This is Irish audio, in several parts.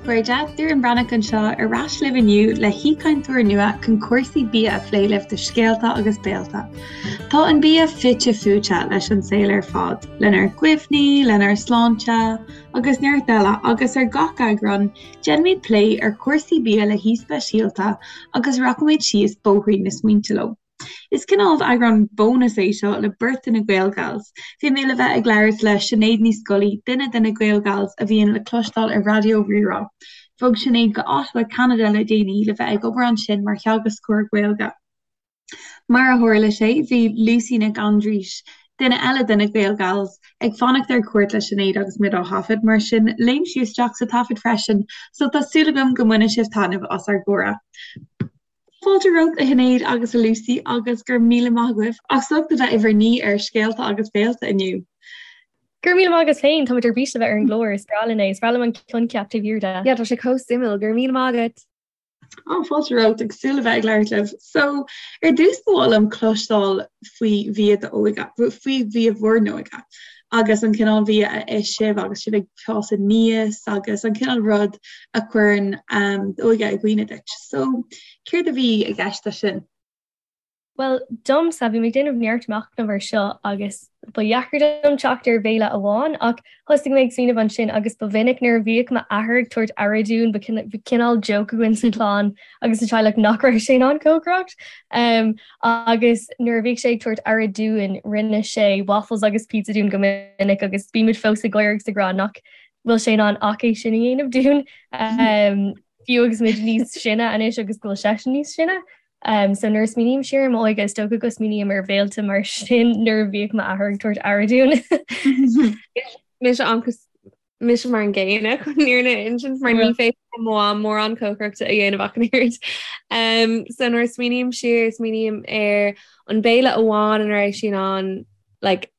chairde, Doireann Breathnach anseo ar ais libh inniu le haoichainteoir nua chun cúrsaí bia a phlé libh do Scéalta agus Béalta. Tá an bia fite fuaite leis an saol ar fad, lenár gcuimhní, lenár sláinte agus neart eile agus ar gach eagrán déanfaimid plé ar chúrsaí bia le haoi speisialta agus rachaimid síos bóithrín na smaointe leo. Is cineál eagrán bónais é seo le beirt de na Gaelgals. Bhí mé le bheith ag labhairt le Sinéad Ní Scolaí, duine de na Gaelgals a bhíonn le cloisteáil ar Raidió Rí-Rá. Bhog Sinéad go Ottawa, Ceanada le déanaí le bheith ag obair ansin mar theagascóir Gaeilge. Mar a tharla sé, bhí Lucy Nic Aindreis, duine eile de na Gaelgals, ag fanacht ar cuairt le Sinéad agus muid á thaifead, mar sin léim sí isteach sa taifead freisin, so tá súil agam go mbainfidh sibh taitneamh as ár gcomhrá. Fáilte romhat a Shinéad agus a Lucy agus go raibh míle maith agaibh as ucht a bheith i bhur n-aoi ar Scéalta agus Béalta inniu. Go raibh míle maith agat féin, táimid ar bís le bheith ar an gclár, is breá linn é, is breá liom an coincheap taobh thiar de. Yeah, tá sé chomh suimiúil, go raibh míle maith agat! Á, fáilte romhat, ag súil le bheith ag labhairt libh. So, ar dtús ba mhaith liom cloisteáil faoi bhia d'óige, faoi bhia bhur n-óige agus an cineál bhia a ith sibh agus sibh ag fás aníos agus an cineál rud a chuireann d'óige i gcuimhne duit. So, céard a bhí i gceist leis sin? Bhuel, domsa, bhí mé ag déanamh neart machnaimh ar seo agus ba dheacair dom teacht ar bhéile amháin ach thosaigh mé ag smaoineamh ansin agus ba mhinic nuair a bhíodh m'athair ag tabhairt aire dúinn, ba chineál joke againn sa chlann agus sa teaghlach nach raibh sé in ann cócaireacht. Agus nuair a bhíodh sé ag tabhairt aire dúinn, rinne sé waffles agus pizza dúinn go minic agus bímid fós ag gáire agus ag rá nach bhfuil sé in ann ach é sin a dhéanamh dúinn, fiú agus muid níos sine anois agus go bhfuil seisean níos sine. So nuair a smaoiním siar ar m'óige, is dócha go smaoiním ar bhéilte mar sin nuair a bhíodh m'athair ag tabhairt aire dúinn. Mise an Mise mar an gcéanna chun an fhírinne a insint mar ní féidir le mo mham mórán cócaireachta a dhéanamh ach an oiread. Um, so nuair a smaoiním siar, smaoiním ar an béile amháin ina raibh sí in ann like,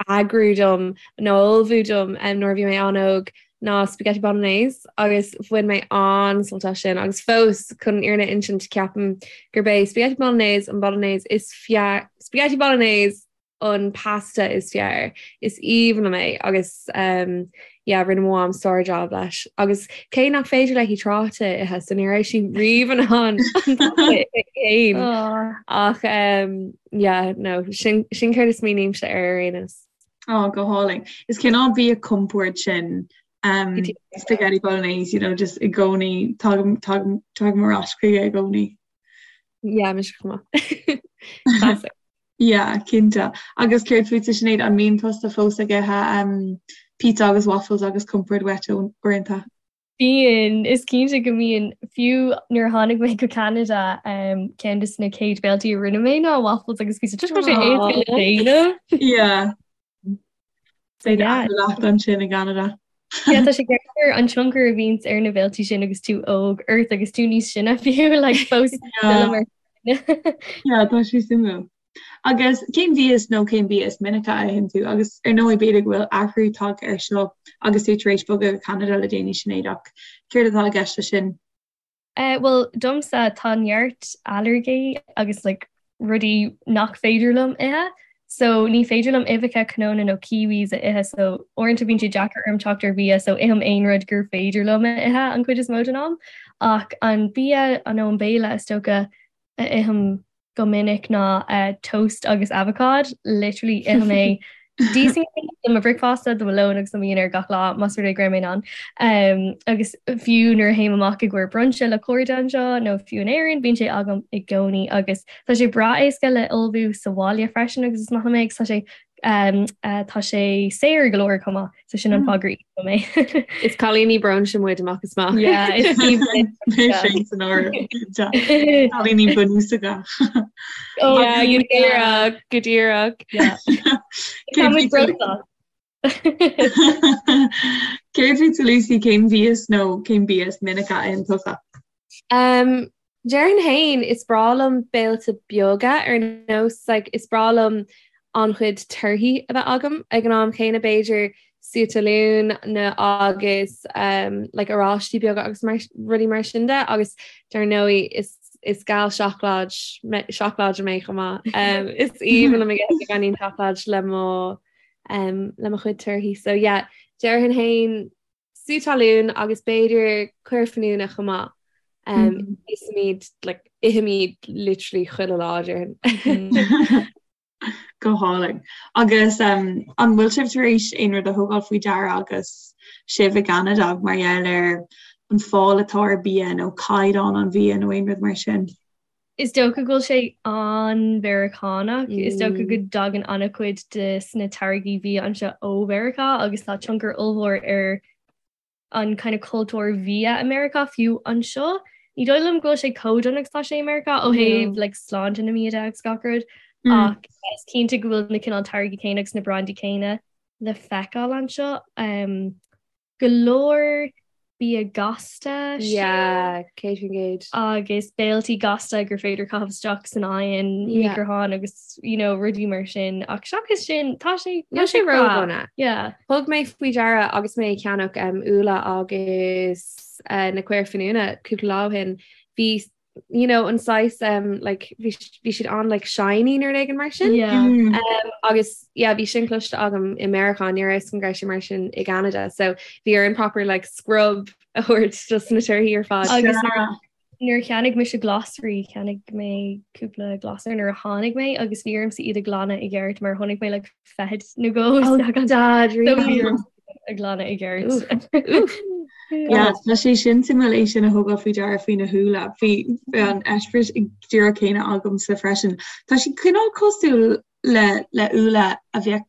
eagrú dom nó ullmhú dom um, nuair a bhí mé an-óg ná spaghetti bolognese agus bhain mé an-sult as sin agus fós chun an fhírinne a insint ceapaim gurb é spaghetti bolognese an bolognese is fearr spaghetti bolognese an pasta is fearr. Is aoibhinn liom é agus um, yeah, rinne mo mham sár-job leis. Agus cé nach féidir léi tráta a ithe, so ní raibh sí riamh in ann an pasta a ithe féin. Ach um, yeah, no, sin, sin céard a smaoinímse ar ar aon nós. Oh, go hálainn. Is cineál bia compoird sin um, spaghetti bolognese, you know, just i gcónaí tagaim tagaim tagaim ar ais chuige i gcónaí. Yeah, mise chomh maith. Classic. Yeah, cinnte. Agus céard fútsa Sinéad, an mbíonn tusa fós ag ithe um, pizza agus waffles agus compord uait uaireanta? Bíonn, is cinnte go mbíonn. Fiú nuair a tháinig mé go Ceanada, um, ceann de na chéad béiltí a rinne mé ná waffles agus pizza. Just go sé éasca le déanamh. Yeah. Leat ansin i gCeanada. Yeah, tá sé gearr an tionchar a bhíonns ar na béiltí sin agus tú óg ort agus tú níos sine fiú like, fós Yeah. Yeah, tá sé suimiúil. Agus cén mhias nó cén bia is minice a itheann tú agus ar ndóigh b'fhéidir go bhfuil athrú tagtha air seo agus tú tar éis bogadh go Ceanada le déanaí Sinéad ach céard atá i gceist leis sin? Eh, bhuel, domsa tá neart ailléirgí agus like, rudaí nach féidir liom ithe. So ní féidir liom uibheacha, cnónna nó kiwis a ithe, so uaireanta bíonn sé deacair orm teacht ar bhia, so ithim aon rud gur féidir liom a ithe an chuid is mó den am. Ach an bia nó an béile is dócha a ithim go minic ná toast agus avocád, literally ithim é d'íosfainn é do mo bhricfeasta, do mo lón agus do mo dhinnéar gach lá más rud é go raibh mé in ann. Um, agus fiú nuair a théim amach i gcomhair brunch le cairde anseo nó fiú in Éirinn, bíonn sé agam i gcónaí agus tá sé breá éasca le ullmhú sa bhaile freisin agus is maith liom é agus tá sé um, uh, tá sé saor go leor chomh maith. So sin an fáth gur ith mé. Is cailíní brunch muid amach is amach. Yeah, is Mé san áireamh. Cailíní bunúsacha. Oh, yeah, go díreach, go díreach. Yeah. Tá muid bródúil. Céard fútsa Lucy cén mhias nó cén bia is minice a itheann tusa? Um, Déarfainn féin, is breá liom béilte beaga ar nós like, is breá liom an-chuid torthaí a bheith agam ag an am chéanna b'fhéidir sú talún nó agus um, like, oráistí beaga agus mar, rudaí mar sin de agus dar ndóigh is is gal seacláid seacláide mé chomh maith. Um, is aoibhinn liom ag ithe beagáinín seacláid le mo um, le mo chuid torthaí. So yeah, déarfainn féin. Sú talún agus b'fhéidir caor finiúna chomh maith. Um, Ithimid like, ithimid literally chuile lá déarfainn. Go hálainn. Agus um, an bhfuil sibh tar éis aon rud a thógáil faoi deara agus sibh i gCeanada mar gheall ar an fáil atá ar bia nó caighdeán an bhia nó aon rud mar sin? Is dócha go bhfuil sé an-Mheiriceánach. Is dócha go dtagann an-chuid de na táirgí bia anseo ó Mheiriceá agus tá tionchar ollmhór ar an kind of cultúr bhia i Meiriceá fiú anseo. Ní dóigh liom go bhfuil sé chomh dona agus tá sé i Meiriceá ó thaobh like, sláinte na mbia de agus gach rud ach is cinnte go bhfuil na cineál táirgí céanna agus na brandaí céanna le feiceáil anseo. Um, go leor bia gasta Yeah, 100%. agus béiltí gasta gur féidir caitheamh isteach san oigheann, Yeah. micreathonn agus you know, rudaí mar sin ach seachas sin tá sé Níl sé breá. ródhona. Yeah. Thug mé faoi deara agus mé ag ceannach um, úlla agus uh, na caor finiúna cúpla lá ó shin, bhí you know, an saghas um, like, bhí bhí siad an like, shiny nó rud éigin mar sin. Yeah. Um, agus yeah, bhí sin cloiste agam i Meiriceá ní raibh an sin mar sin i gCanada, so bhí orm proper like, scrub a thabhairt just na torthaí ar fad. Agus nuair a cheannaigh mise glasraí, cheannaigh mé cúpla glasra nuair a tháinig mé agus bhí ormsa iad a ghlanadh i gceart mar chonaic mé like feithid nó dhó Oh, isteach ann. Dad, So bhí really? ormsa a ghlanadh i gceart. Oof. Yeah, tá sé sin suimiúil é sin a thógáil faoi deara faoi na húlla. Bhí an eispéireas díreach céanna agamsa freisin. Tá sé cineál cosúil le le úlla a bheadh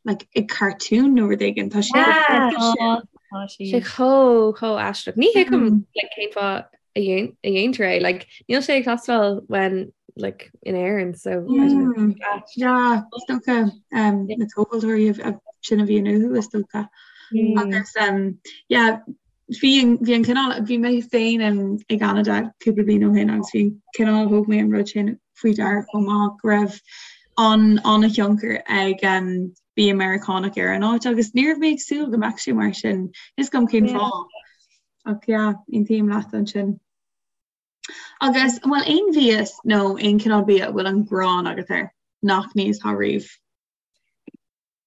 like, i cartoon nó rud éigin. Tá sé Yeah. Tá tá Sé siad. chomh chomh aisteach. Ní thuigim Mm. like, cén fáth a dhéan- a dhéantar é. Like, níl sé ag teastáil when like, in Éirinn, so I don't know. Mm. Yeah, is dócha um, na tomhaltóirí a- sin a bhíonn uathu is dócha. Mm. Agus um, yeah, bhí an bhí an cineál bhí mé féin in i gCeanada cúpla bliain ó shin agus bhí an cineál thóg mé an rud sin faoi deara chomh maith go raibh an an-thionchar ag um, bia Meiriceánach ar an áit agus ní raibh mé ag súil go mbeadh sé mar sin. Níl a fhios agam cén Yeah. fáth. Ach yeah, aontaím leat ansin. Agus an bhfuil aon mhias nó aon cineál bia a bhfuil an ghráin agat air nach n-íosfá riamh?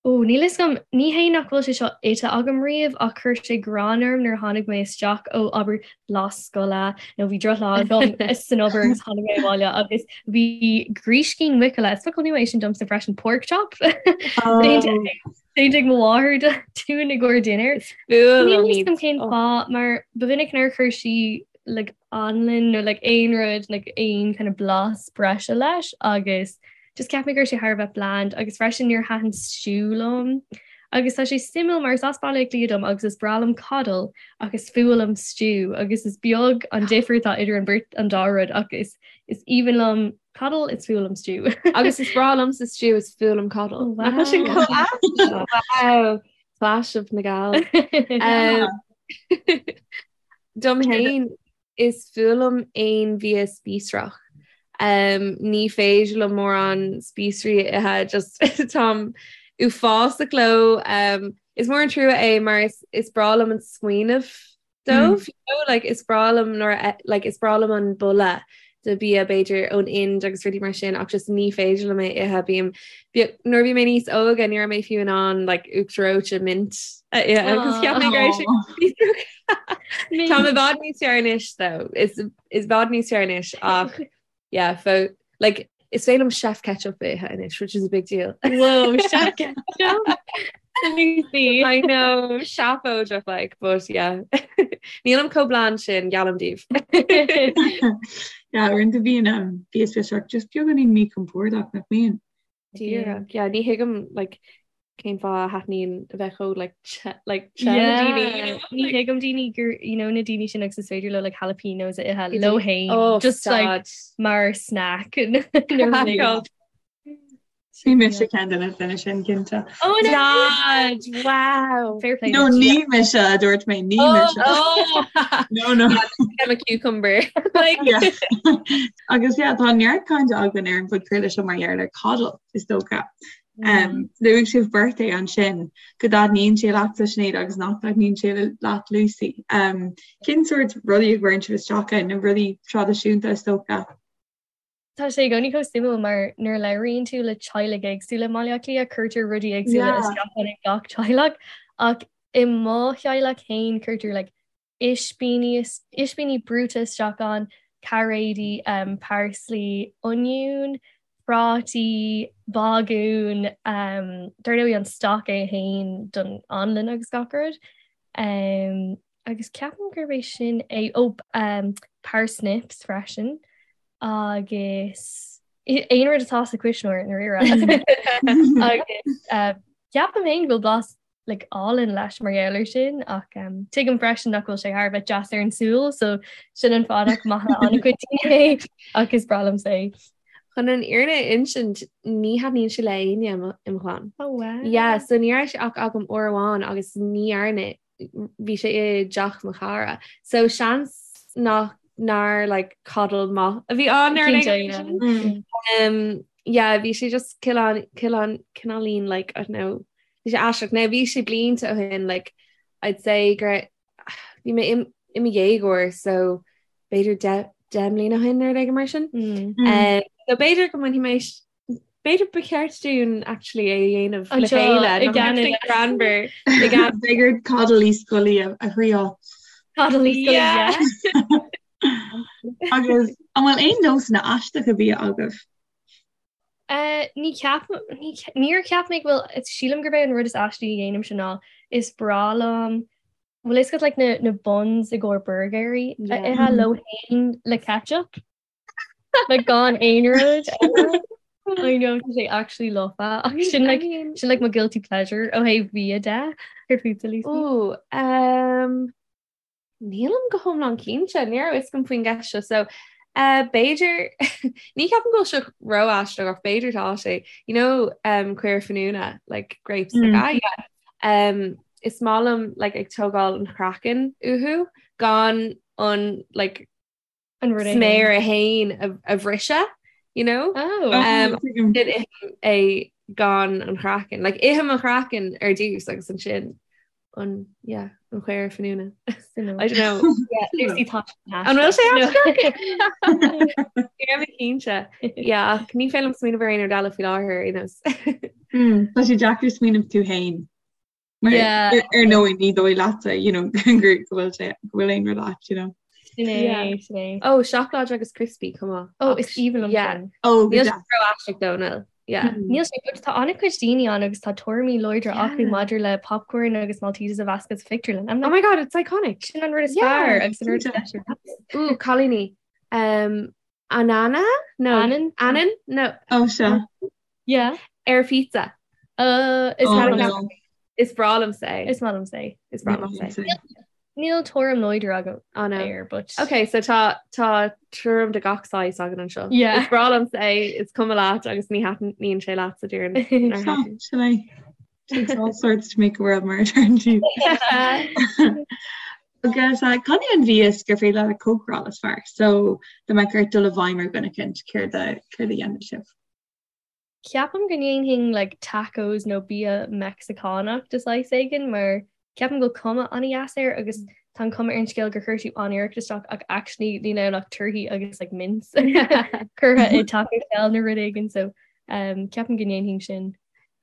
Ó, níl 'fhios agam, ní hé nach bhfuil sé seo ite agam riamh ach chuir sé gráin orm nuair a tháinig mé isteach ó abair lá scoile nó bhí drochlá agam san obair agus tháinig mé abhaile agus bhí gríscín muiceola, is focal nua é sin domsa freisin, pork chop, déanta ag mo mháthair dúinn i gcomhair dinnéir. Níl 'fhios agam cén fáth mar ba mhinic nár chuir sí like anlann nó like aon rud like aon kind of blas breise leis agus just cheap mé go raibh sé thar a bheith bland agus freisin níor thaitin stew liom. Agus tá sé suimiúil mar is as Baile Átha Cliath dom agus is breá liom coddle ach is fuath liom stew agus is beag an difear atá idir an beirt an dá rud ach is is aoibhinn liom coddle is fuath liom stew. Agus is breá liomsa stew is fuath liom coddle. Oh, Nach bhfuil sin wow. chomh ait? Wow. Clash of na Gall. Um, Dom féin is fuath liom aon bhia spíosrach. Um, ní féidir liom mórán spíosraí a ithe, just táim uafásach leo. Um, is mór an trua é mar is, is breá liom an smaoineamh dóibh, you know, like, is breá liom nuair a, like, is breá liom an boladh de bia b'fhéidir ón Ind agus rudaí mar sin ach just ní féidir liom é a ithe. Bím, nuair a bhí mé níos óige ní raibh mé fiú in ann like, uachtar reoite mint a ithe agus cheap mé go raibh sé spíosrach. Tá i bhfad níos fearr anois though. Is is i bhfad níos fearr anois ach yeah, fo like is féidir liom chef ketchup a ithe anois, which is a big deal. Whoa, chef ketchup. Lucy. I know, seafóideach like, but yeah. Nílim chomh bland sin, geallaim daoibh. Yeah, uaireanta bíonn um, bia spíosrach just beagáinín míchompordach nach mbíonn. Díreach, yeah, ní thuigim like cén fáth a thaitníonn a bheith chomh like te like te le daoine, you know? Ní thuigim daoine gur you know na daoine sin agus is féidir leo like jalapenos a ithe leo féin Oh, just like stad. mar snack. Craiceáilte. Bhí mise ceann de na daoine sin cinnte. Oh no! Dad, wow. Fair play. No, ní mise a dúirt mé, ní mise. Oh, No, no. I'm a cucumber. Like, Yeah. Agus yeah, tá neart cainte againn ar an bpodchraoladh seo mar gheall ar coddle is dócha. Um, luaigh sibh beirt é ansin go dtaitníonn sé leatsa Sinéad agus nach dtaitníonn sé leat Lucy. Um, cén sórt rudaí a gcuireann sibh isteach ann, na rudaí traidisiúnta is dócha? Tá sé i gcónaí chomh suimiúil mar nuair a labhraíonn tú le teaghlaigh éagsúla i mBaile Átha Cliath, cuirtear rudaí éagsúla Yeah. isteach ann ag gach teaghlach ach. I mo theaghlach féin cuirtear like ispíní ispíní brúite isteach ann, cairéidí, parsley, oinniún, prátaí, bagún, dar ndóigh an stoc é féin don anlann agus gach rud. Agus ceapaim gurb é sin é, ó parsnips freisin agus aon rud atá sa chuisneoir i ndáiríre. Agus ceapaim féin go bhfuil blas like álainn leis mar gheall air sin ach um, tuigim freisin nach bhfuil sé thar a bheith deas ar an súil so sin an fáth nach maith le an-chuid daoine é ach is breá liomsa é. Chun an fhírinne a insint ní thaitníonn sé le éinne i mo chlann. Oh wow. Yeah, so ní raibh sé ach agam uair amháin agus ní dhearna bhí sé i dteach mo chara. So seans nach nár like coddle maith a bhí ann ar an Cinnte, yeah. Mm. Um, yeah, bhí sé just cineál cineál cineáilín like I don't know Bhí sé aisteach. Now bhí sé blianta ó shin like I'd say gur bhí mé i mo dhéagóir so b'fhéidir 10 mbliana ó shin nó rud éigin mar sin. Mm. Um, so b'fhéidir go mbainfidh mé b'fhéidir ba cheart dúinn actually é a dhéanamh le chéile i gCeanada. Greannmhar i gCeanada. B'fhéidir Coddle Uí Scolaí a thriáil. Coddle Uí Scolaí, yeah. Agus an bhfuil aon nósanna aisteacha bia agaibh? Ní cheapaim, níor cheap mé go bhfuil, sílim gurb é an rud is aistí a dhéanaimse ná is breá liom, bhfuil fhios agat like na, na buns i gcomhair burgéirí a ithe leo féin le ketchup? Like gan aon rud eile. I know tá sé actually lofa ach sin like, sin like mo guilty pleasure ó thaobh bia de. Céard fútsa Lucy? Ooh, um, Nílim go hiomlán cinnte, ní raibh fhios agam faoin gceist seo, so eh, b'fhéidir, ní ceapaim go bhfuil sé ró-aisteach ach b'fhéidir tá sé, you know um, caora finiúna, like grapes, like, ah yeah. Um, is maith liom like ag tógáil an chraiceann uathu gan an like An rud é sméar é féin a bhriseadh, you know? Oh. Um, sin ithim é gan an chraiceann. Like, ithim an chraiceann ar dtús agus ansin an, yeah, an chaora finiúna. I don't know. Yeah, Lucy tá An bhfuil sé aisteach? Ní raibh mé cinnte. Yeah, ach ní féidir liom smaoineamh ar aon rud eile faoi láthair ar aon nós. Tá sé deacair smaoineamh tú féin. Mar ar ndóigh ní dóigh leatsa you know, go bhfuil sé go bhfuil aon rud ait, you know. Sin é, sin é. Ó, seacláid agus crispy, come on. Ó, is aoibhinn liom Yeah. sin. Ó, go Níl sé deas. ró-aisteach though, níl. Yeah. Níl sé but tá an-chuid daoine ann agus tá tuairimí láidre Yeah. acu maidir le popcorn agus Maltesers a mheascadh sa phictiúrlann. I'm Oh like, my god, it's iconic. sin an rud is Yeah, fearr agus an rud is cinnte. deise. Ooh, cailíní. Um, anana? No. Anann? Anann? No. Ó, sea. Yeah. Ar phizza. Uh, is Oh, maith liom no. Is breá liomsa é. Is maith liomsa é. Is breá liomsa é. Níl tuairim láidir agam Oh no. air, but Ok, so tá tá tuairim de gach saghas againn anseo. Yeah. Is breá liomsa é, is cuma leat agus ní thaitníonn sé leat sa deireadh. Nár Sea, thaitin. sin é. Takes all sorts to make a world mar a deireann siad. Agus uh, cad é an mhias gur féidir leat a chócaráil is fearr? So, dá mbeadh ort dul i bhfeidhm ar dhuine eicínt, céard a céard a dhéanfadh sibh? Ceapaim go ndéanfainn like tacos nó bia Meicsiceánach de saghas éigin mar ceapaim go bhfuil cuma an-dheas air agus tá an cuma ar an scéal gur chuir tú an-iarracht isteach ach actually níl ann ach torthaí agus like mince curtha i taco shell nó rud éigin so um, ceapaim go ndéanfainn sin.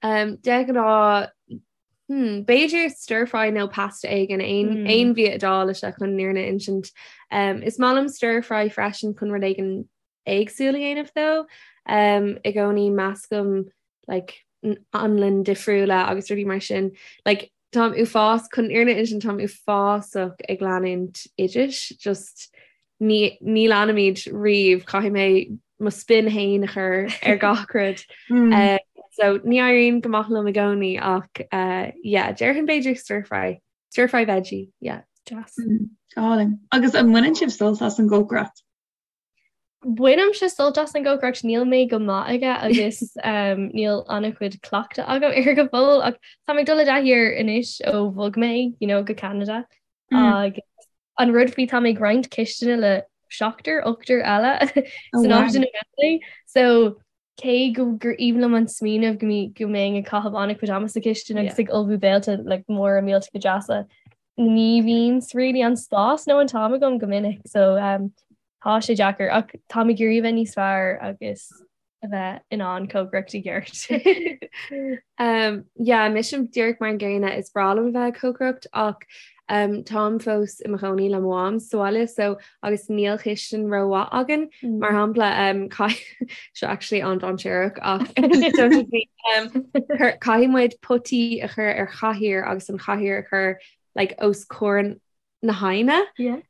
Um, de ghnáth hmm, b'fhéidir stir fry nó pasta éigin aon Mm. aon bhia Iodáilise chun an fhírinne a insint. Um, is maith liom stir fry freisin chun rud éigin éagsúil a dhéanamh though. I gcónaí meascaim like anlann difriúla agus rudaí mar sin. Like táim uafás chun an fhírinne a insint táim uafásach ag leanúint oidis, just ní ní leanaimid riamh, caithfidh mé mo spin féin a chur ar gach rud. Mm. Uh, so ní éiríonn go maith liom i gcónaí ach uh, yeah, déarfainn b'fhéidir stir fry. Stir fry veggie, yeah. Deas. Mm, go hálainn. Agus an mbaineann sibh sult as an gcócaireacht? Bainimse sult as an gcócaireacht, níl mé go maith aige agus níl an-chuid cleachtadh agam air go fóill ach táim ag dul i dtaithí air anois ó bhog mé you know, go Ceanada agus an rud faoi tá mé ag roinnt cistine le seachtar, ochtar eile san áit ina bhfuil mé so cé go gur aoibhinn liom an smaoineamh go mí go mbeinn ag caitheamh an-chuid ama sa chistin agus ag ullmhú béilte like móra millteacha deasa, ní bhíonn really an spás nó an t-am agam go minic so um, tá sé deacair ach táim ag iarraidh a bheith níos fearr agus. a bheith in ann cócaireacht i gceart. Um, yeah, mise díreach mar an gcéanna is breá liom a bheith ag cócaireacht ach um, táim fós i mo chónaí le mo mham sa bhaile so agus níl cistin rómhaith againn mm. mar shampla um, seo actually an-dainséarach ach um, caithfidh muid potaí a chur ar chathaoir agus an chathaoir a chur like, os comhair na haibhne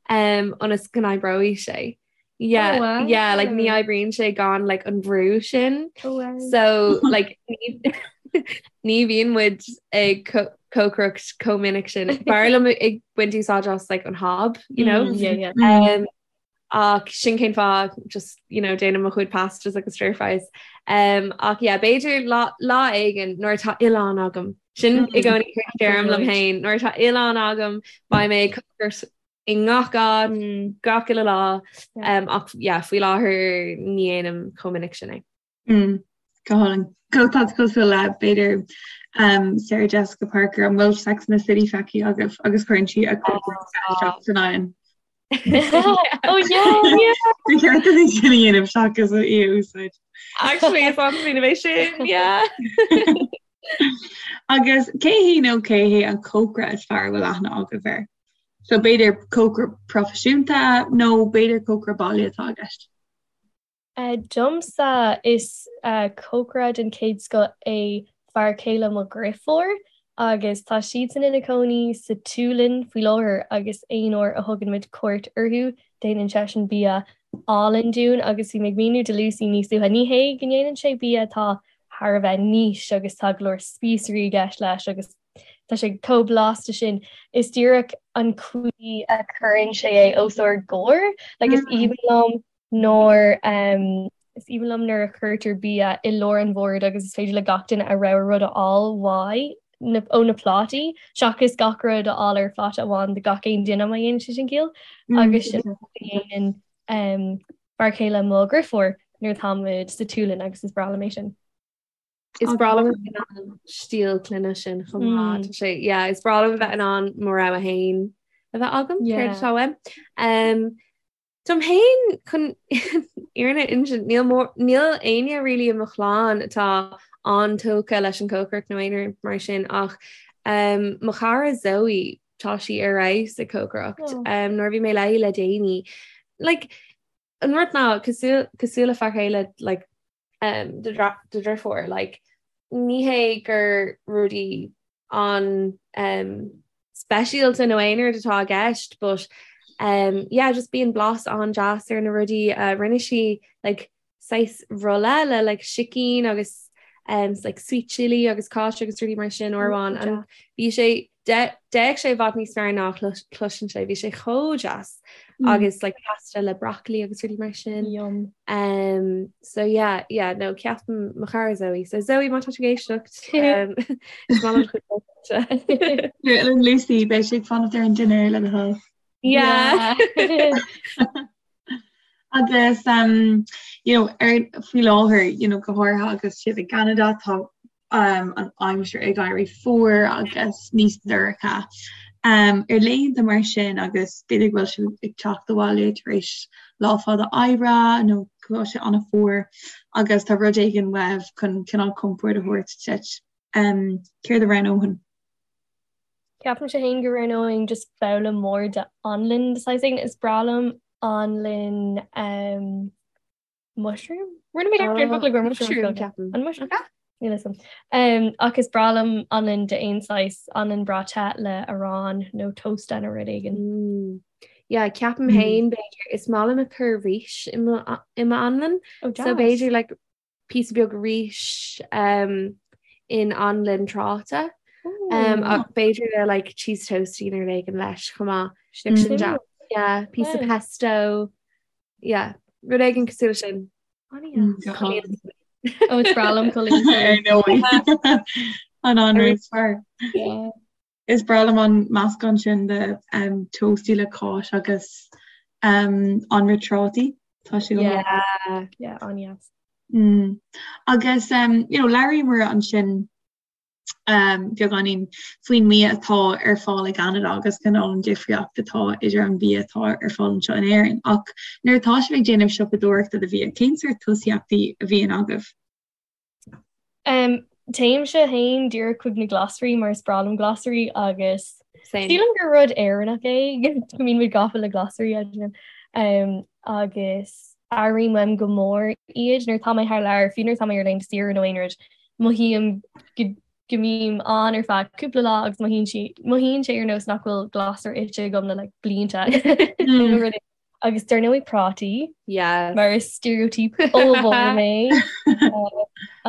um, ionas go n-oibreoidh sé. Yeah, oh, wow. yeah, like ní oibríonn sé gan like an brú sin. Oh, wow. So like ní bhíonn muid ag cócaireacht chomh minic sin. B'fhearr liom ag baint úsáid as like an hob, you know? Mm, yeah, yeah. Um, ach sin cén fáth just you know déanaim mo chuid pastas agus stir fries. Um, ach yeah, b'fhéidir lá, lá éigin nuair atá oileán agam. Sin i gcónaí a deirim liom féin nuair atá oileán agam beidh mé ag cócaireacht i ngach áit mm. gach uile lá um, ach yeah, faoi láthair ní dhéanaim chomh minic sin é. Mm, go hálainn. Go tá cosúil le b'fhéidir um, Sarah Jessica Parker an bhfuil Sex and the City feicthe agaibh agus cuireann sí a cuid san oigheann. Oh yeah, yeah. Ba cheart duit é sin a dhéanamh seachas í a úsáid. Actually, is an-smaoineamh é sin, yeah. Agus cé hí nó cé hé an cócaire is fearr a bhfuil aithne agaibh air? So b'fhéidir cócaire proifisiúnta nó b'fhéidir cócaire baile atá i gceist. Domsa, is cócaire den chéad scoth é fear céile mo dheirfiúr agus tá siadsan ina cónaí sa tSualainn faoi láthair agus aon uair a thugann muid cuairt orthu déanann seisean bia álainn dúinn agus bhí mé ag míniú do Lucy níos luaithe, ní hé go ndéanann sé bia atá thar a bheith niche agus tá go leor spíosraí i gceist leis agus tá sé chomh blasta sin, is díreach an chaoi a chuireann sé é os ár gcomhair, like is aoibhinn liom nuair is aoibhinn liom nuair a chuirtear bia i lár an bhoird agus is féidir le gach duine a rogha rud a fháil uaidh na, ó na plátaí seachas gach rud a fháil ar phláta amháin do gach aon duine má dhéanann sé sin ciall agus sin a dhéanann um, fear céile mo dheirfiúr nuair atá muid sa tSualainn agus is breá liom é sin. Is breá liom an stíl clainne sin chomh maith. Tá sé yeah, is breá liom a bheith in ann mo rogha féin a bheith agam céard atá uaim. Um, Dom féin chun fhírinne a insint níl mór níl éinne really i mo chlann atá an-tógtha leis an cócaireacht nó aon rud mar sin ach um, mo chara Zoe tá sí ar fheabhas ag cócaireacht. Oh. Um, nuair a bhí mé léi le déanaí like, an rud ná cosúil cosúil le fear céile like, um, do dheirfiúr like, ní hé gur rudaí an um, speisialta nó aon rud atá i gceist but um, yeah, just bíonn blas an-deas ar na rudaí uh, rinne sí like, saghas rolla le like, sicín agus um, like, sweet chili agus cáis agus rudaí mar sin uair amháin and bhí sé D'fhéach sé i bhfad níos fearr ná a chloiseann sé, bhí sé chomh deas agus like pasta le broccoli agus rudaí mar sin. Yum. Um, so yeah, yeah, no, ceapaim mo chara Zoe. So Zoe, má tá tú ag éisteacht, um, is maith liom do chuid cócaireachta. Lucy, beidh sé ag fanacht ar an dinnéar le do thoil. Yeah. Agus um, you know, ar faoi láthair, you know, go háirithe agus sibh i gCeanada, tá um, an aimsir ag éirí fuar agus níos dorcha. Um, ar laethanta mar sin agus b'fhéidir go bhfuil sibh ag teacht abhaile tar éis lá fada oibre nó go bhfuil sé an-fhuar agus tá rud éigin uaibh chun cineál compord a thabhairt duit. Um, céard a roghnófá? Ceapaimse féin go roghnóinn just babhla mór de anlann de saghas éigin. Is breá liom anlann um, mushroom? Rinne mé dearmad ar an bhfocal gur mushroom ceapaim. An mushroom? Níl a fhios agam. Um, ach is breá liom anlann de aon saghas, anlann breá te le arán nó tósta nó rud éigin. Mm. Yeah, ceapaim féin b'fhéidir is maith liom ag cur rís i mo i m'anlann. Oh, So deas. b'fhéidir like píosa beag rís um, in anlann tráta. Um, ach b'fhéidir le like cheese toastie nó rud éigin leis chomh maith. Sin Mm. deas. Yeah, píosa Wow. pesto. Yeah, rud éigin cosúil leis sin. Ó is breá liom Ar ndóigh. An anraith is fearr. Is breá liom an meascán sin de um, toastie le cáis agus um, anraith trátaí. Tá sé go maith. Yeah, yeah, an-deas. Mm. Agus um, you know, labhraíomar ansin. um, beagáinín faoin mbia atá ar fáil i gCeanada agus cineál an difríocht atá idir an bia atá ar fáil anseo in Éirinn. Ach nuair atá sibh ag déanamh siopadóireachta do bhia, cén sórt tosaíochtaí a bhíonn agaibh? Um, téimse féin díreach chuig na glasraí mar is breá liom glasraí agus sílim gur rud Éireannach é go mbíonn muid gafa le glasraí um, agus airím uaim go mór iad nuair atá mé thar lear, fiú nuair atá mé ar laethanta saoire nó aon rud, mothaím go go mbím ann ar feadh cúpla lá agus mothaíonn sí mothaíonn sé ar nós nach bhfuil glasra ite agam le like blianta nó rud agus dar ndóigh prátaí Yes. mar is stereotype ollmhór mé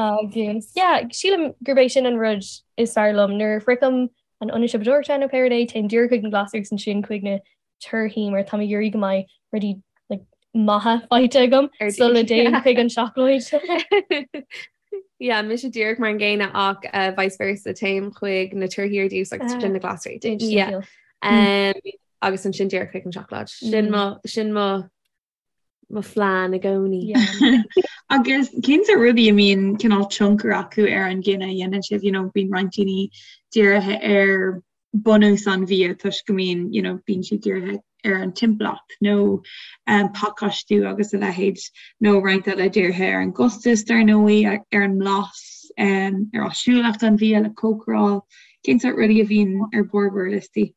agus yeah sílim gurb é sin an rud is fearr liom nuair a shroichim an ionad siopadóireachta nó pé rud é téim díreach chuig na glasraí agus ansin chuig na torthaí mar tá mé ag iarraidh go mbeidh rudaí like, maithe faighte agam sula dtéim chuig an seacláid. Yeah, mise díreach mar an gcéanna ach uh, vice versa téim chuig na torthaí ar dtús agus sin na glasraí. Yeah. Um, agus ansin díreach chuig an seacláid. Sin mm. mo sin mo mo phlean i gcónaí. Agus cén sórt rudaí a mbíonn cineál tionchar acu ar an gcinneadh a dhéanann sibh, you know, bíonn roinnt daoine dírithe ar bunús an bhia toisc go mbíonn, you know, bíonn siad dírithe ar an timpeallacht nó um, pacáistiú agus a leithéid nó roinnt eile dírithe ar an gcostas dar ndóigh, ar an mblas, um, ar áisiúlacht an bhia le cócaráil. Cén sórt rudaí a bhíonn ar bharr bhur liostaí?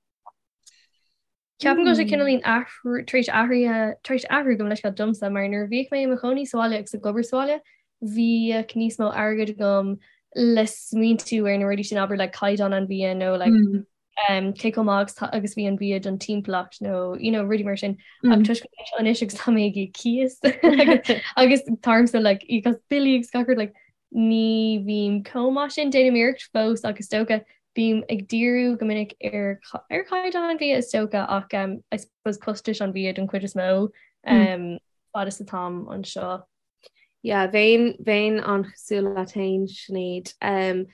Ceapaim go bhfuil sé cineáilín athrú tar éis athraithe tar éis athrú gabh mo leithscéal domsa mar nuair a bhíodh mé i mo chónaí sa bhaile agus ag obair sa bhaile bhíodh níos mó airgid agam le smaointiú ar na rudaí sin abair like caighdeán an bhia nó like mm. um, cé chomh maith agus agus bhí an bia don timpeallacht nó you know, rudaí mar sin mm. ach toisc anois agus tá mé ag íoc cíos agus táimse like íoc as billí agus gach rud like Ní bhím chomh maith sin, déanaim iarracht fós ach is dócha, bím ag díriú go minic ar ar chaighdeán an bhia is dócha ach I suppose costais an bhia don chuid is mó fad is atáim anseo. Yeah, bheinn bheinn an-chosúil leat féin, Sinéad. Um,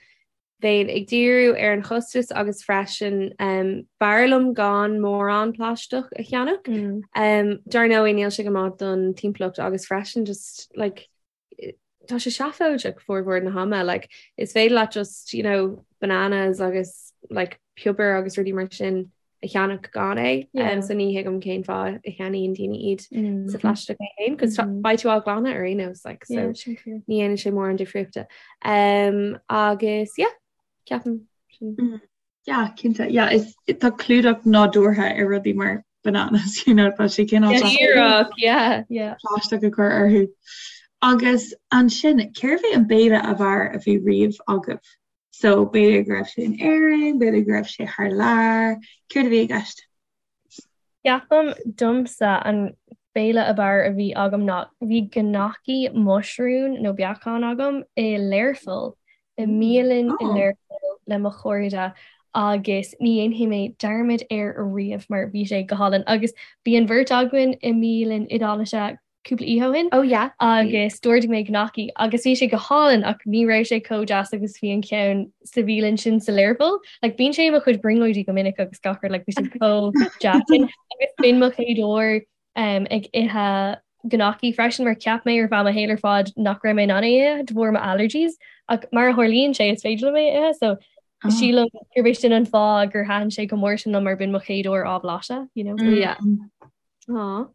bheinn ag díriú ar an chostas agus freisin um, b'fhearr liom gan mórán plaisteach a cheannach. Mm. Um, dar ndóigh níl sé go maith don timpeallacht agus freisin just like tá sé seafóideach formhór na hama like is féidir leat just you know bananas agus like piobar agus rudaí mar sin a cheannach gan é yeah. um, so ní thuigim cén fáth a cheannaíonn daoine iad mm. sa phlaisteach é féin cos mm. beidh tú á ghlanadh ar aon nós like so yeah, ní dhéanann sé mórán difríochta um, agus yeah ceapaim sin. Mm. Yeah, cinnte. Yeah, is tá clúdach nádúrtha ar rudaí mar bananas, you know, tá sé cineál Díreach, yeah. Yeah. plaisteach a chur orthu. Agus ansin, cérbh é an béile ab fhearr a bhí riamh agaibh? So b'fhéidir go raibh sé in Éirinn, b'fhéidir go raibh sé thar lear, céard a bhí i gceist? Ceapaim domsa an béile ab fhearr a bhí agam ná bhí gnocchi muisriún nó beacán agam i Learpholl, i mbialann i Learpholl le mo chairde agus ní dhéanfaidh mé dearmad air ariamh mar bhí sé go hálainn agus bhí an bheirt againn i mbialann Iodáilise cúpla oíche ó shin. Oh yeah. Agus d'ordaigh mé gnocchi agus bhí sé go hálainn ach ní raibh sé chomh deas agus bhí an ceann sa bhialann sin sa Learpholl. Like bíonn sé i mo chuid brionglóidí go minic agus gach rud like bhí sé chomh deas sin. Agus b'in mo chéad uair um, ag ithe gnocchi freisin mar cheap mé ar feadh mo shaol ar fad nach raibh mé in ann é a ithe de bharr mo allergies ach mar a tharlaíonn sé is féidir liom é a ithe so oh. sílim gurb é sin an fáth gur thaitin sé chomh mór sin liom mar b'in mo chéad uair á bhlaiseadh, you know. Mm. Yeah. Aw.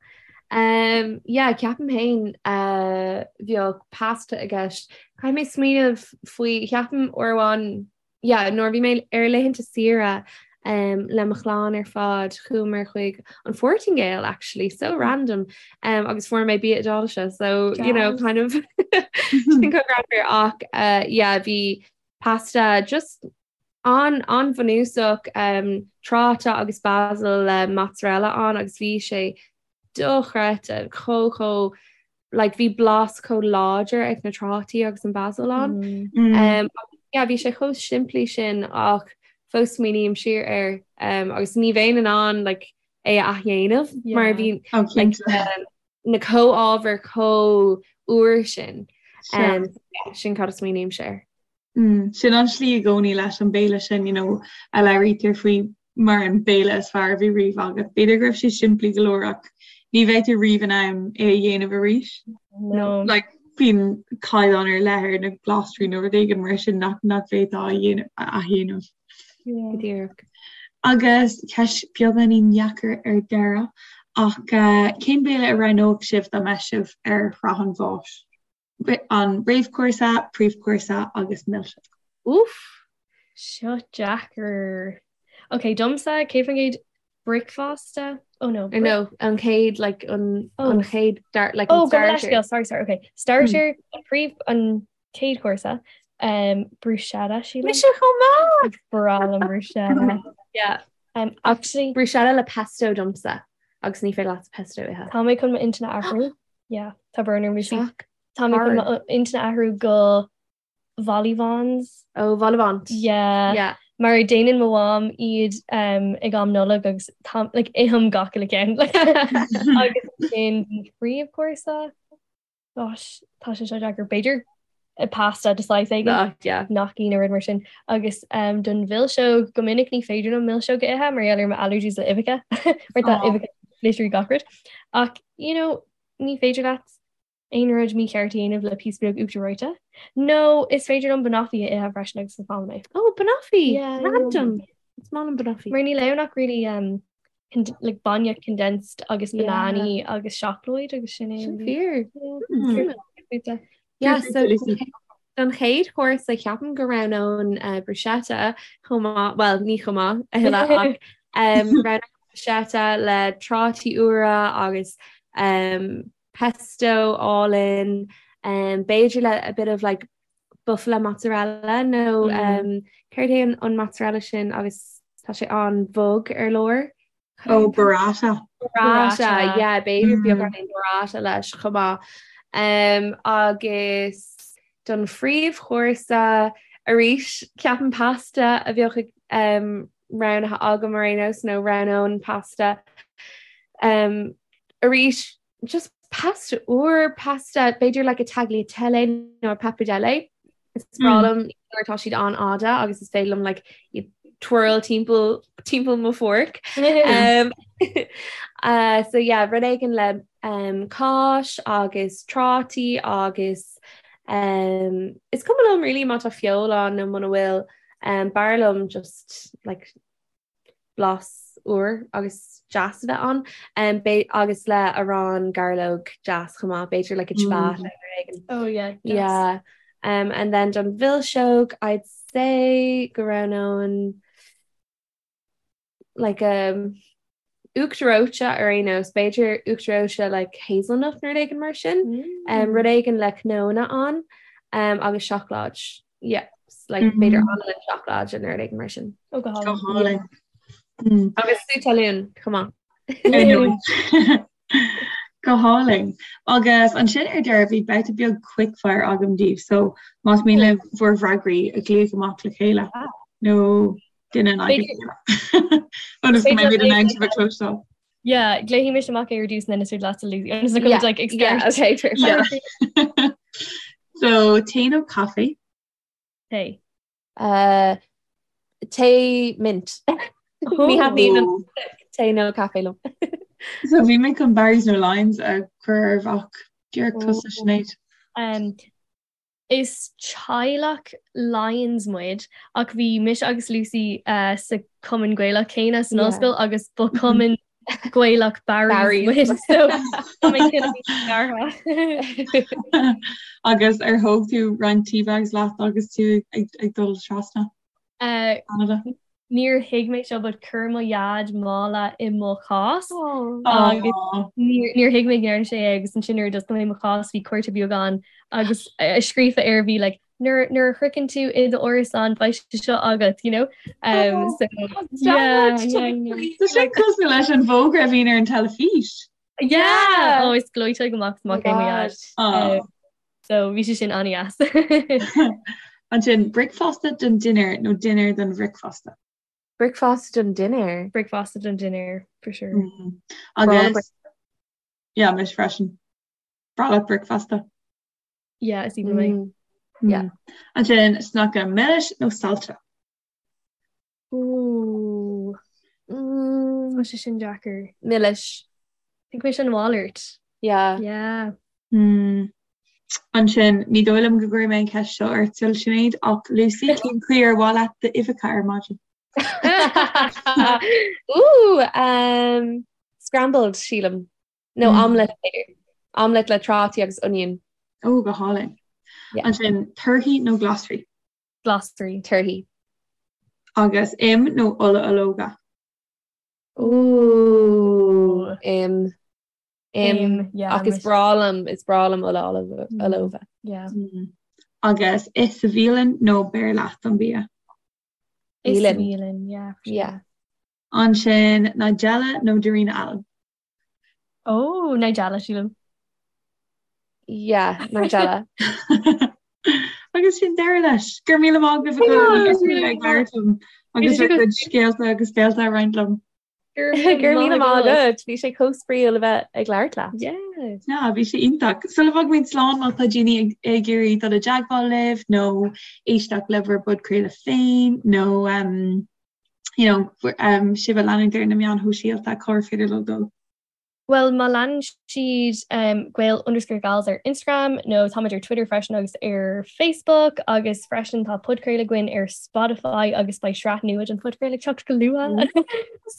Um, yeah, ceapaim féin uh, bheadh pasta i gceist. Caithfidh mé smaoineamh faoi ceapaim uair amháin yeah, nuair a bhí mé ar laethanta saoire um, le mo chlann ar fad chuamar chuig an Phortaingéil actually, so random um, agus fuair mé bia Iodáilise so you know kind of sin chomh greannmhar ach uh, yeah, bhí pasta just An an-bhunúsach, tráta agus basil le mozzarella ann agus bhí sé dochreidte, chomh chomh like bhí blas chomh láidir ag na trátaí agus an basil ann. Um, yeah, bhí sé chomh simplí sin ach fós smaoiním siar air um, agus ní bheinn in ann like, é a athdhéanamh yeah. mar bhí oh, like, um, na comhábhair chomh úr sin. Um, yeah, sin cad a smaoinímse air. Sin an tslí i gcónaí leis an béile sin, you know, a labhraítear faoi mar an béile is fearr a bhí riamh agat. B'fhéidir go raibh sé simplí go leor ach ní bheidh tú riamh in ann é a dhéanamh arís. No. Like, Bíonn caighdeán ar leith ar na glasraí nó rud éigin mar sin nach nach bhféadfá a dhéanamh a athdhéanamh. Go díreach. Agus ceist beagáinín dheacair ar deireadh, ach cén béile a roghnódh sibh dá mbeadh sibh ar shraith an bháis? An réamhchúrsa, príomhchúrsa agus milseog. Úff! Seo deacair. Ok, domsa, 100% bricfeasta? Oh no. Or no, an chéad like an oh. an chéad start like oh, starter. Oh, sorry, sorry, okay. Starter, mm. príomh an chéad chúrsa. Um, bruschetta sí Mise chomh maith! Breá liom bruschetta. Yeah. Um, actually bruschetta le pesto domsa agus ní féidir leat pesto a ithe. Tá mé chun m'intinn a athrú. Yeah, tá brón orm Lucy. Tá mé chun m'intinn a athrú go vol-au-vents. Oh, vol-au-vent. Yeah. Yeah. Mar déanann mo mham iad um, ag am Nollag agus tá, like, ithim gach uile ceann. Agus sin príomhchúrsa. Gosh, tá sé seo deacair. B'fhéidir pasta de saghas éigin. Ah, yeah. Gnocchi nó rud mar sin. Agus um, don mhilseog go minic ní féidir liom milseog a ithe mar gheall ar mo allergies le uibheacha. Mar tá Oh. uibheacha literally gach rud. Ach, you know, ní féidir leat aon rud mícheart a dhéanamh le píosa beag uachtar reoite. Nó is féidir liom banoffee a ithe freisin agus is maith liom é. Oh, banoffee! Yeah, Random! Is maith liom banoffee. Mar níl ann ach really um, like bainne condensed agus Yeah. bananaí agus seacláid agus sin é. Sin really. fíor. Yeah. Hmm. Yeah, so Lucy. don chéad chúrsa ceapaim go roghnóinn uh, bruschetta chomh maith, well ní chomh maith a thuilleadh ach um, roghnóinn bruschetta le trátaí úra agus um, pesto álainn, um, b'fhéidir le a bit of like buffalo mozzarella nó Mm. um, céard é an, an mozzarella sin agus tá sé an-bhog ar lár. Oh, burrata. Burrata, Burrata. yeah, b'fhéidir Mm. beagáinín burrata leis chomh maith. Um, agus don phríomhchúrsa arís ceapaim pasta a bheadh ag, um, roghnaithe agam ar aon nós nó roghnóinn pasta. Um, arís just pasta úr, pasta b'fhéidir like a tagliatelle nó a pappardelle. Is breá liom nuair atá siad an-fhada agus is féidir liom like iad twirl timpeall timpeall mo fork. Um, uh, so yeah, rud éigin le um, cáis agus trátaí agus um, is cuma liom really má tá feoil ann nó muna bhfuil um, b'fhearr liom just like blas úr agus deas a bheith ann um, agus le arán gairleog deas chomh maith, b'fhéidir like a ciabatta mm. nó éigin. Oh yeah. Deas. Yeah. Um, and then don mhilseog I'd say go roghnóinn like um, uachtar reoite ar aon nós, b'fhéidir uachtar reoite like hazelnut nó rud éigin mar sin, mm. um, rud éigin le cnónna ann um, agus seacláid. Yeah, like mm. b'fhéidir anlann seacláid nó rud éigin mar sin. Oh, go Go hálainn. Mm. Agus sú talún, chomh maith. Go hálainn. Agus ansin ar deireadh bhí babhta beag quickfire agam daoibh, so más mian libh bhur bhfreagraí a ghlaoch amach le chéile nó duine in aghaidh a chéile. Ionas go mbeimid in ann sibh a chloisteáil. Yeah, glaofaidh mise amach é ar dtús and then is féidir leatsa Lucy. Ionas go Yeah, like yeah, start. okay, perfect. Yeah. So tae nó caife? Tae. Uh, tae mint. Ní thaitníonn an tae nó caife liom. So bhí mé chun Barry's nó Lyons a chur oraibh ach díreach tusa Sinéad. Um, Is teaghlach Lyons muid ach bhí mise agus Lucy uh, sa Cumann Gaelach céanna san ollscoil agus ba Cumann Gaelach Barry's muid so tá mé cineál scartha. Agus ar thóg tú roinnt tea bags leat agus tú ag, ag dul trasna? Uh, Canada? Níor thuig mé seo but chuir mo dhaid mála i mo chás agus níor níor thuig mé go ndearna sé é agus ansin nuair a d'oscail mé mo chás bhí cárta beag ann agus scríofa air bhí like nuair nuair a shroicheann tú i d'árasán beidh sé seo agat you know um, so yeah, yeah, yeah. Tá sé cosúil leis an bhfógra a bhíonn ar an teilifís. Yeah! Oh, is gleoite go max amach é mo dhaid. Oh. Um, so bhí sé sin an-deas. Ansin bricfeasta don dinnéar nó dinnéar don bhricfeasta? Bricfeasta don dinnéar. Bricfeasta don dinnéar, for sure. Mm. Agus yeah, mise freisin. Breá leat bricfeasta. Yeah, is aoibhinn liom é. Mm. Yeah. Ansin sneaice milis nó saillte? Ooh. Mm. Tá sé sin deacair. Milis. Think mise an mhalairt. Yeah. Yeah. Mm. Ansin, ní dóigh liom go gcuirfidh mé an cheist seo ort, Sinéad, ach Lucy, cén chaoi ar mhaith leat d'uibheacha ar maidin? Ooh, um, scrambled, sílim. Nó mm. omelette b'fhéidir. Omelette le trátaí agus onion. Ó, go hálainn. Yeah. Ansin, torthaí nó glasraí? Glasraí. Torthaí. Agus im nó ola ológa? Ooh, im. Im, ach is breá liom, is breá liom ola ológa. Yeah. Mm. Agus ith sa bhialann nó beir leat an bia? Ith sa bhialann, yeah. Yeah. Ansin Nigella nó Darina Allen? Oh, Nigella, sílim. Yeah, Nigella. Agus sin deireadh leis. Go raibh míle maith agaibh ag labhairt liom agus bhur gcuid scéalta agus béalta a roinnt liom. Go raibh míle maith agat, bhí sé chomh spraíúil a bheith ag labhairt leat. Yeah. Yeah, bhí sé iontach. Sula bhfágaimid slán má tá daoine ag ag iarraidh dul i dteagmháil libh nó éisteacht le bhur bpodchraoladh féin nó um, you know, um, sibh a leanúint ar na meáin shóisialta, cár féidir leo dul? Bhuel, má leanann siad um, Gael underscore Gals ar Instagram nó táimid ar Twitter freisin agus ar Facebook agus freisin tá podchraoladh againn ar Spotify agus beidh sraith nua den phodchraoladh ag teacht go luath.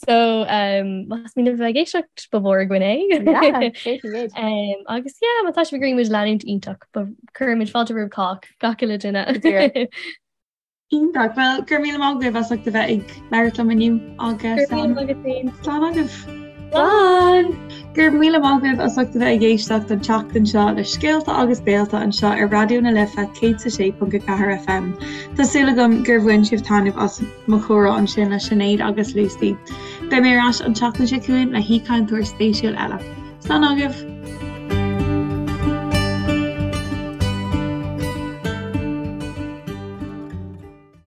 So um, más mian libh a bheith ag éisteacht ba mhór againn é. Yeah, um, agus yeah, má tá sibh ag iarraidh muid a leanúint iontach, cuirimid fáilte roimh cách gach uile duine. Iontach. Bhuel, go raibh míle maith agaibh as ucht a bheith ag labhairt liom inniu agus Go raibh míle maith agat féin. Slán agaibh. Slán! Go raibh míle maith agaibh as ucht a bheith ag éisteacht an tseachtain seo le Scéalta agus Béalta anseo ar Raidió na Life 106.4 FM. Tá súil agam gur bhain sibh taitneamh as mo chomhrá ansin le Sinéad agus Lucy. Beidh mé ar ais an tseachtain seo chugainn le haoichainteoir spéisiúil eile. Slán agaibh!